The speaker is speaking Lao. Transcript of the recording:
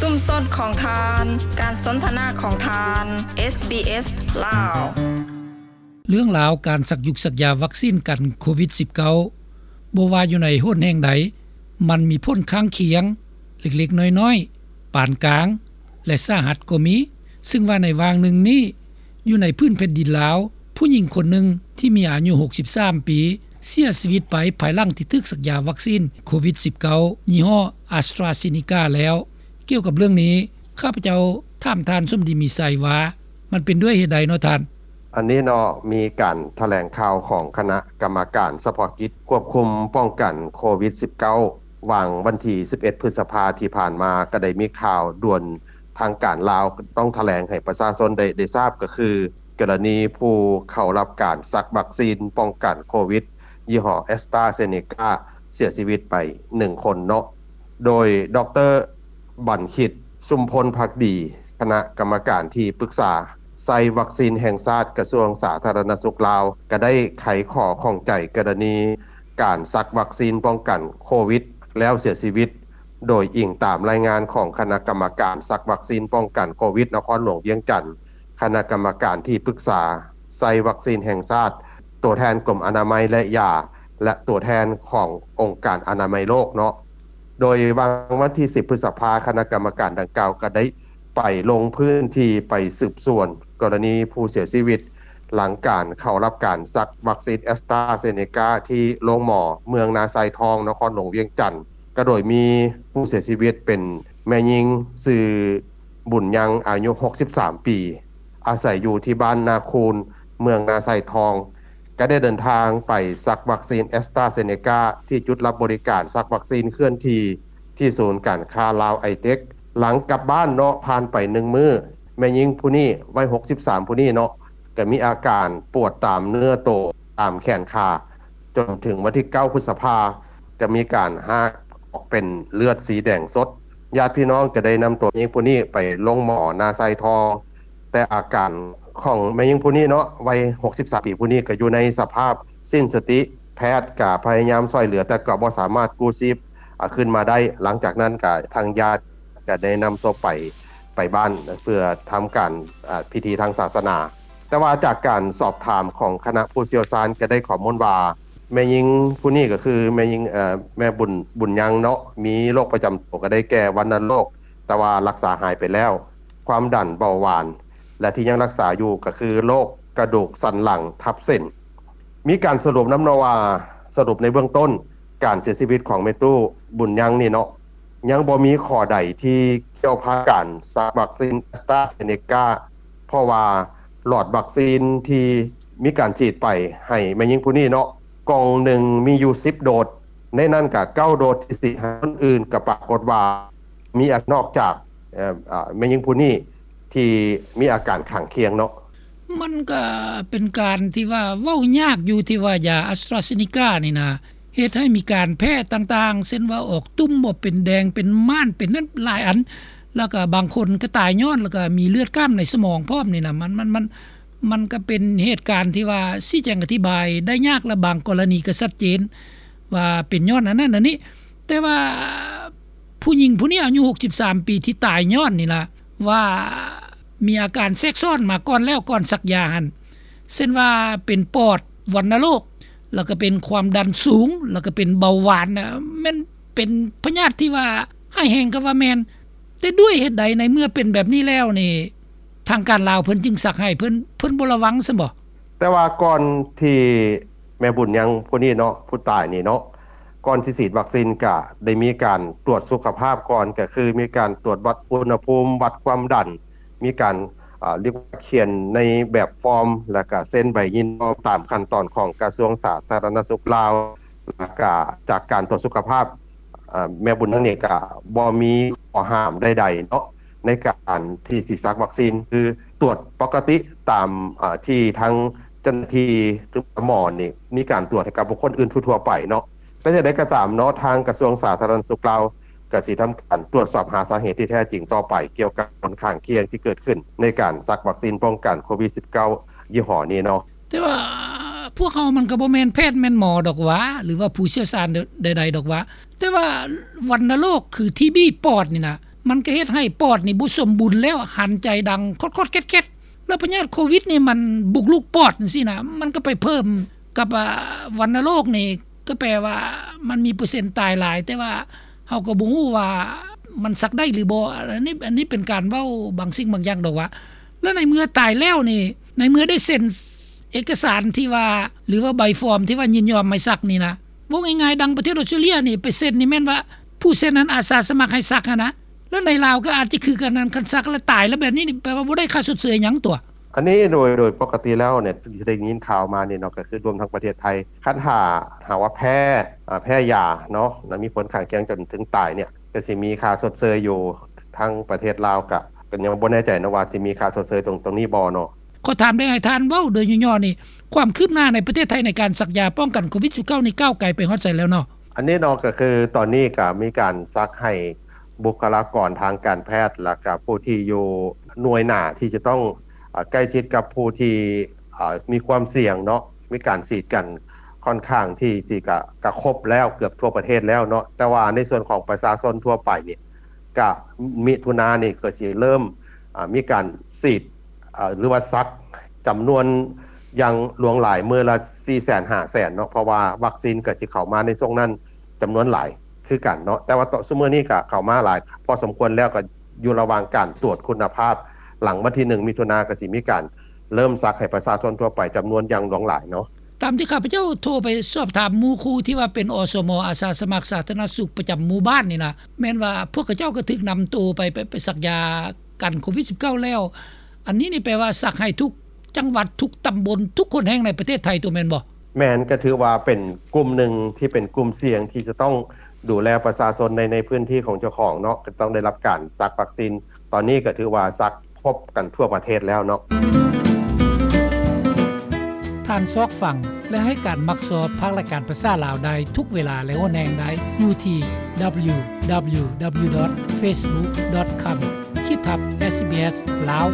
ຊຸມຊົນຂອງທ່ານ, ການສົນທະນາຂອງທ່ານ, ເອສບີເອສ ລາວ. ເລື່ອງລາວການສັກຢຸກສັກຢາວັກຊີນກັນໂຄວິດສິບເກົ້າ ບໍ່ວ່າຢູ່ໃນຫົນແຫ່ງໃດ, ມັນມີຜົນຂ້າງຄຽງເລັກໆນ້ອຍໆ, ປານກາງ ແລະ ສາຫັດກໍມີ, ຊຶ່ງວ່າໃນຫວ່າງໜຶ່ງນີ້ ຢູ່ໃນພື້ນແຜ່ນດິນລາວ, ຜູ້ຍິງຄົນໜຶ່ງທີ່ມີອາຍຸຫົກສິບສາມປີ ເສຍຊີວິດໄປພາຍຫຼັງທີ່ຖືກສັກຢາວັກຊີນໂຄວິດສິບເກົ້າ ຍີ່ຫໍ້ AstraZeneca ແລ້ວ. ກ່ຽວກັບເລື່ອງນີ້, ຂ້າພະເຈົ້າຖາມທ່ານສົມດີມີໄຊວ່າ ມັນເປັນດ້ວຍເຫດໃດເນາະທ່ານ? ອັນນີ້ເນາະ ມີການຖະແຫຼງຂ່າວຂອງຄະນະກຳມະການສະເພາະກິດຄວບຄຸມປ້ອງກັນໂຄວິດສິບເກົ້າ ຫວ່າງວັນທີສິບເອັດ ພຶດສະພາທີ່ຜ່ານມາ ກໍໄດ້ມີຂ່າວດ່ວນທາງການລາວຕ້ອງຖະແຫຼງໃຫ້ປະຊາຊົນໄດ້ ໄດ້ຊາບ ກໍຄືກໍລະນີຜູ້ເຂົ້າຮັບການສັກວັກຊີນປ້ອງກັນໂຄວິດ ຍີ່ຫໍ້ AstraZeneca ເສຍຊີວິດໄປໜຶ່ງຄົນເນາະ. ໂດຍ ດຣ. ບັນຄິດ ຊຸມພົນພັກດີ ຄະນະກຳມະການທີ່ປຶກສາໄຊວັກຊີນແຫ່ງຊາດ ກະຊວງສາທາລະນະສຸກລາວ ກໍໄດ້ໄຂຂໍ້ຂ້ອງໃຈກໍລະນີການສັກວັກຊີນປ້ອງກັນໂຄວິດ ແລ້ວເສຍຊີວິດ, ໂດຍອີງຕາມລາຍງານຂອງຄະນະກຳມະການສັກວັກຊີນປ້ອງກັນໂຄວິດນະຄອນຫຼວງວຽງຈັນ, ຄະນະກຳມະການທີ່ປຶກສາໄຊວັກຊີນແຫ່ງຊາດ, ຕົວແທນກົມອະນາໄມ ແລະ ຢາ ແລະ ຕົວແທນຂອງອົງການອະນາໄມໂລກເນາະ. ໂດຍຫວ່າງວັນທີສິບ ພຶດສະພາ ຄະນະກຳມະການດັ່ງກ່າວກໍໄດ້ໄປລົງພື້ນທີ່ໄປສືບສວນກໍລະນີຜູ້ເສຍຊີວິດ ຫຼັງການເຂົ້າຮັບການສັກວັກຊີນ AstraZeneca ທີ່ໂລງໝໍເມືອງນາຊາຍທອງ ນະຄອນຫຼວງວຽງຈັນ, ກໍໂດຍມີຜູ້ເສຍຊີວິດເປັນແມ່ຍິງຊື່ບຸນຍັງ ອາຍຸຫົກສິບສາມປີ ອາໄສຢູ່ທີ່ບ້ານນາຄູນ ເມືອງນາຊາຍທອງ ກໍໄດ້ເດີນທາງໄປສັກວັກຊີນ AstraZeneca ທີ່ຈຸດຮັບບໍລິການສັກວັກຊີນເຄື່ອນທີ່ ທີ່ສູນການຄ້າລາວໄອເຕັກ. ຫຼັງກັບບ້ານເນາະ ຜ່ານໄປໜຶ່ງມື້, ແມ່ຍິງຜູ້ນີ້ ໄວຫົກສິບສາມ ຜູ້ນີ້ເນາະ ກໍມີອາການປວດຕາມເນື້ອໂຕ, ຕາມແຂນຂາ, ຈົນເຖິງວັນທີເກົ້າ ພຶດສະພາ ກໍມີການຮາກອອກເປັນເລືອດສີແດງສົດ. ຍາດພີ່ນ້ອງກໍໄດ້ນຳຕົວແມ່ຍິງຜູ້ນີ້ໄປໂລງໝໍນາຊາຍທອງ, ແຕ່ອາການຂອງແມ່ຍິງຜູ້ນີ້ເນາະ ໄວຫົກສິບສາມປີຜູ້ນີ້ ກໍຢູ່ໃນສະພາບສິ້ນສະຕິ, ແພດກໍພະຍາຍາມຊ່ວຍເຫຼືອ ແຕ່ກໍບໍ່ສາມາດກູ້ຊີບ ອາ ຂຶ້ນມາໄດ້. ຫຼັງຈາກນັ້ນກໍທາງຍາດກໍໄດ້ນຳສົບໄປ ໄປບ້ານເພື່ອທຳການ ອາ ພິທີທາງສາສະໜາ. ແຕ່ວ່າຈາກການສອບຖາມຂອງຄະນະຜູ້ຊ່ຽວຊານກໍໄດ້ຂໍ້ມູນວ່າ ແມ່ຍິງຜູ້ນີ້ກໍຄືແມ່ຍິງ ເອີ ແມ່ບຸນ ບຸນຍັງເນາະ ມີໂລກປະຈຳໂຕກໍໄດ້ແກ່ວັນນະໂລກ ແຕ່ວ່າລັກສາຫາຍໄປແລ້ວ, ຄວາມດັນ, ເບົາຫວານ ແລະ ທີ່ຍັງລັກສາຢູ່ກໍຄືໂລກກະດູກສັນຫຼັງທັບເສັ້ນ. ມີການສະຫຼຸບນຳເນາະວ່າ ສະຫຼຸບໃນເບື້ອງຕົ້ນ ການເສຍຊີວິດຂອງແມ່ຕູ້ບຸນຍັງນີ້ເນາະ ຍັງບໍ່ມີຂໍ້ໃດທີ່ກ່ຽວພັນການສັກວັກຊີນ AstraZeneca ເພາະວ່າຫຼອດວັກຊີນທີ່ມີການສີດໄປໃຫ້ແມ່ຍິງຜູ້ນີ້ເນາະ ກ່ອງໜຶ່ງມີຢູ່ສິບໂດດ, ໃນນັ້ນກະເກົ້າໂດດທີ່ສີດໃຫ້ຄົນອື່ນ ກະປາກົດວ່າມີ ອາ ນອກຈາກ ເອີ ອາ ແມ່ຍິງຜູ້ນີ້ທີ່ມີອາການຂ້າງຄຽງເນາະ. ມັນກະເປັນການທີ່ວ່າເວົ້າຍາກຢູ່ ທີ່ວ່າຢາ AstraZeneca ນີ້ນະ ເຮັດໃຫ້ມີການແພ້ຕ່າງໆ ເຊັ່ນວ່າອອກຕຸ່ມ ອອກເປັນແດງ ເປັນມ່ານ ເປັນນັ້ນຫຼາຍອັນ, ແລ້ວກະບາງຄົນກະຕາຍຍ້ອນ ແລ້ວກະມີເລືອດຂ້າມໃນສະໝອງພ້ອມນີ້ນະ. ມັນ ມັນ ມັນ ມັນກະເປັນເຫດການທີ່ວ່າຊີ້ແຈງອະທິບາຍໄດ້ຍາກ ແລະ ບາງກໍລະນີກະຊັດເຈນວ່າເປັນຍ້ອນອັນນັ້ນອັນນີ້. ແຕ່ວ່າ ຜູ້ຍິງຜູ້ນີ້ອາຍຸຫົກສິບສາມປີທີ່ຕາຍຍ້ອນນີ້ລະ ວ່າມີອາການແຊກຊ້ອນມາກ່ອນແລ້ວ ກ່ອນສັກຢາຫັ້ນ ເຊັ່ນວ່າເປັນປອດວັນນະໂລກ ແລ້ວກໍເປັນຄວາມດັນສູງ ແລ້ວກໍເປັນເບົາຫວານນະ ແມ່ນເປັນພະຍາດທີ່ວ່າຮ້າຍແຮງກໍວ່າແມ່ນ. ແຕ່ດ້ວຍເຫດໃດໃນເມື່ອເປັນແບບນີ້ແລ້ວນີ້ ທາງການລາວເພິ່ນຈຶ່ງສັກໃຫ້ ເພິ່ນ ເພິ່ນບໍ່ລະວັງຊັ້ນບໍ? ແຕ່ວ່າກ່ອນທີ່ແມ່ບຸນຍັງຜູ້ນີ້ເນາະ ຜູ້ຕາຍນີ້ເນາະ ກ່ອນຊິສີດວັກຊີນກະໄດ້ມີການຕວດສຸຂະພາບກ່ອນ ກະຄືມີການຕວດວັດອຸນຫະພູມ ວັດຄວາມດັນ ມີການ ອາ ລຽກວ່າຂຽນໃນແບບຟອມ ແລ້ວກະເຊັນໃບຍິນຍອມຕາມຂັ້ນຕອນຂອງກະຊວງສາທາລະນະສຸກລາວ ແລ້ວກະຈາກການຕວດສຸຂະພາບ ອາ ແມ່ບຸນນາງນີ້ກະບໍ່ມີຂໍ້ຫ້າມໃດໆເນາະ ໃນການທີ່ຊິສັກວັກຊີນ ຄືຕວດປົກກະຕິຕາມ ອາ ທີ່ທາງເຈົ້າໜ້າທີ່ ຫຼື ໝໍນີ້ມີການຕວດໃຫ້ກັບບຸກຄົນອື່ນທົ່ວໆໄປເນາະ. ແຕ່ຢ່າງໃດກໍຕາມເນາະ ທາງກະຊວງສາທາລະນະສຸກລາວກະຊິທຳການຕວດສອບຫາສາເຫດທີ່ແທ້ຈິງຕໍ່ໄປ ກ່ຽວກັບຜົນຂ້າງຄຽງທີ່ເກີດຂຶ້ນໃນການສັກວັກຊີນປ້ອງກັນໂຄວິດສິບເກົ້າ ຍີ່ຫໍ້ນີ້ເນາະ. ແຕ່ວ່າພວກເຮົາມັນກໍບໍ່ແມ່ນແພດແມ່ນໝໍດອກຫວາ ຫຼືວ່າຜູ້ຊ່ຽວຊານໃດໆດອກຫວາ ແຕ່ວ່າວັນນະໂລກຄືທີບີປອດນີ້ນະ ມັນກໍເຮັດໃຫ້ປອດນີ້ບໍ່ສົມບູນແລ້ວ ຫັນໃຈດັງຄົດໆແຄດໆ ແລ້ວພະຍາດໂຄວິດນີ້ມັນບຸກລຸກປອດຈັ່ງຊີ້ນະ ມັນກໍໄປເພີ່ມກັບ ອາ ວັນນະໂລກນີ້ ກໍແປວ່າມັນມີເປີເຊັນຕາຍຫຼາຍ ແຕ່ວ່າເຮົາກໍບໍ່ຮູ້ວ່າມັນສັກໄດ້ຫຼືບໍ່ ອັນນີ້ ອັນນີ້ເປັນການເວົ້າບາງສິ່ງບາງຢ່າງດອກວ່າ ແລ້ວໃນເມື່ອຕາຍແລ້ວນີ້ ໃນເມື່ອໄດ້ເຊັນເອກະສານທີ່ວ່າ ຫຼືວ່າໃບຟອມທີ່ວ່າຍິນຍອມໃຫ້ສັກນີ້ນະ ເວົ້າງ່າຍໆ ດັ່ງປະເທດອອສເຕຣເລຍນີ້ ໄປເຊັນນີ້ແມ່ນວ່າຜູ້ເຊັນນັ້ນອາສາສະໝັກໃຫ້ສັກຫັ້ນນະ ແລ້ວໃນລາວກໍອາດຈະຄືກັນນັ້ນ ຄັນສັກແລ້ວຕາຍແລ້ວແບບນີ້ນີ້ ແປວ່າບໍ່ໄດ້ຄ່າຊົດເຊີຍຫຍັງຕົວະ. ອັນນີ້ໂດຍ ໂດຍປົກກະຕິແລ້ວນີ້ ທີ່ໄດ້ຍິນຂ່າວມານີ້ເນາະ ກໍຄືລວມທັງປະເທດໄທ ຄັນຖ້າຫາກວ່າແພ້ ອາ ແພ້ຢາເນາະ ແລ້ວມີຜົນຂ້າງຄຽງຈົນເຖິງຕາຍນີ້ ກໍຊິມີຄ່າຊົດເຊີຍຢູ່ ທາງປະເທດລາວກໍ ກໍຍັງບໍ່ແນ່ໃຈເນາະວ່າຊິມີຄ່າຊົດເຊີຍຕົງ ຕົງນີ້ບໍ່ເນາະ. ຂໍຖາມໄດ້ໃຫ້ທ່ານເວົ້າໂດຍຫຍໍ້ໆນີ້ ຄວາມຄືບໜ້າໃນປະເທດໄທໃນການສັກຢາປ້ອງກັນໂຄວິດສິບເກົ້ານີ້ ກ້າວໄກໄປຮອດໃສແລ້ວເນາະ? ອັນນີ້ເນາະ ກໍຄືຕອນນີ້ກໍມີການສັກໃຫ້ບຸກຄະລາກອນທາງການແພດ ແລ້ວກໍຜູ້ທີ່ຢູ່ໜ່ວຍໜ້າທີ່ຈະຕ້ອງ ອາ ໃກ້ຊິດກັບຜູ້ທີ່ ອາ ມີຄວາມສ່ຽງເນາະ ມີການສີດກັນ ຂ້ອນຂ້າງທີ່ຊິກະ ກະຄົບແລ້ວ ເກືອບທົ່ວປະເທດແລ້ວເນາະ ແຕ່ວ່າໃນສ່ວນຂອງປະຊາຊົນທົ່ວໄປນີ້ ກະ ມິຖຸນານີ້ກໍຊິເລີ່ມ ອາ ມີການສີດ ອາ ຫຼືວ່າສັກຈຳນວນຢ່າງຫຼວງຫຼາຍ ມື້ລະສີ່ແສນ ຫ້າແສນເນາະ ເພາະວ່າວັກຊີນກໍຊິເຂົ້າມາໃນຊ່ວງນັ້ນຈຳນວນຫຼາຍຄືກັນເນາະ ແຕ່ວ່າຕອນ ຊຸມມື້ນີ້ກໍເຂົ້າມາຫຼາຍພໍສົມຄວນແລ້ວ ກໍຢູ່ລະຫວ່າງການຕວດຄຸນນະພາບ ຫຼັງວັນທີໜຶ່ງ ມິຖຸນາ ກໍຊິມີການເລີ່ມສັກໃຫ້ປະຊາຊົນທົ່ວໄປຈຳນວນຢ່າງຫຼວງຫຼາຍເນາະ. ຕາມທີ່ຂ້າພະເຈົ້າໂທໄປສອບຖາມໝູ່ຄູ່ທີ່ວ່າເປັນ ອສມ ອາສາສະໝັກສາທາລະນະສຸກປະຈຳໝູ່ບ້ານນີ້ນະ ແມ່ນວ່າພວກເຂົາເຈົ້າກໍຖືກນຳໂຕໄປ ໄປ ໄປສັກຢາກັນໂຄວິດສິບເກົ້າແລ້ວ ອັນນີ້ນີ້ແປວ່າສັກໃຫ້ທຸກຈັງຫວັດ ທຸກຕຳບົນ ທຸກຫົນແຫ່ງໃນປະເທດໄທຕົວະແມ່ນບໍ່? ແມ່ນ ກໍຖືວ່າເປັນກຸ່ມໜຶ່ງທີ່ເປັນກຸ່ມສ່ຽງທີ່ຈະຕ້ອງດູແລປະຊາຊົນໃນ ໃນພື້ນທີ່ຂອງເຈົ້າຂອງເນາະ ກໍຕ້ອງໄດ້ຮັບການສັກວັກຊີນ ຕອນນີ້ກໍຖືວ່າສັກຄົບກັນທົ່ວປະເທດແລ້ວເນາະ. ທ່ານຊອກຟັງ ແລະ ໃຫ້ການມັກຊອບພາກລາຍການພາສາລາວໄດ້ທຸກເວລາ ແລະ ຫົນແຫ່ງໄດ້ຢູ່ທີ່ www.facebook.com/sbslao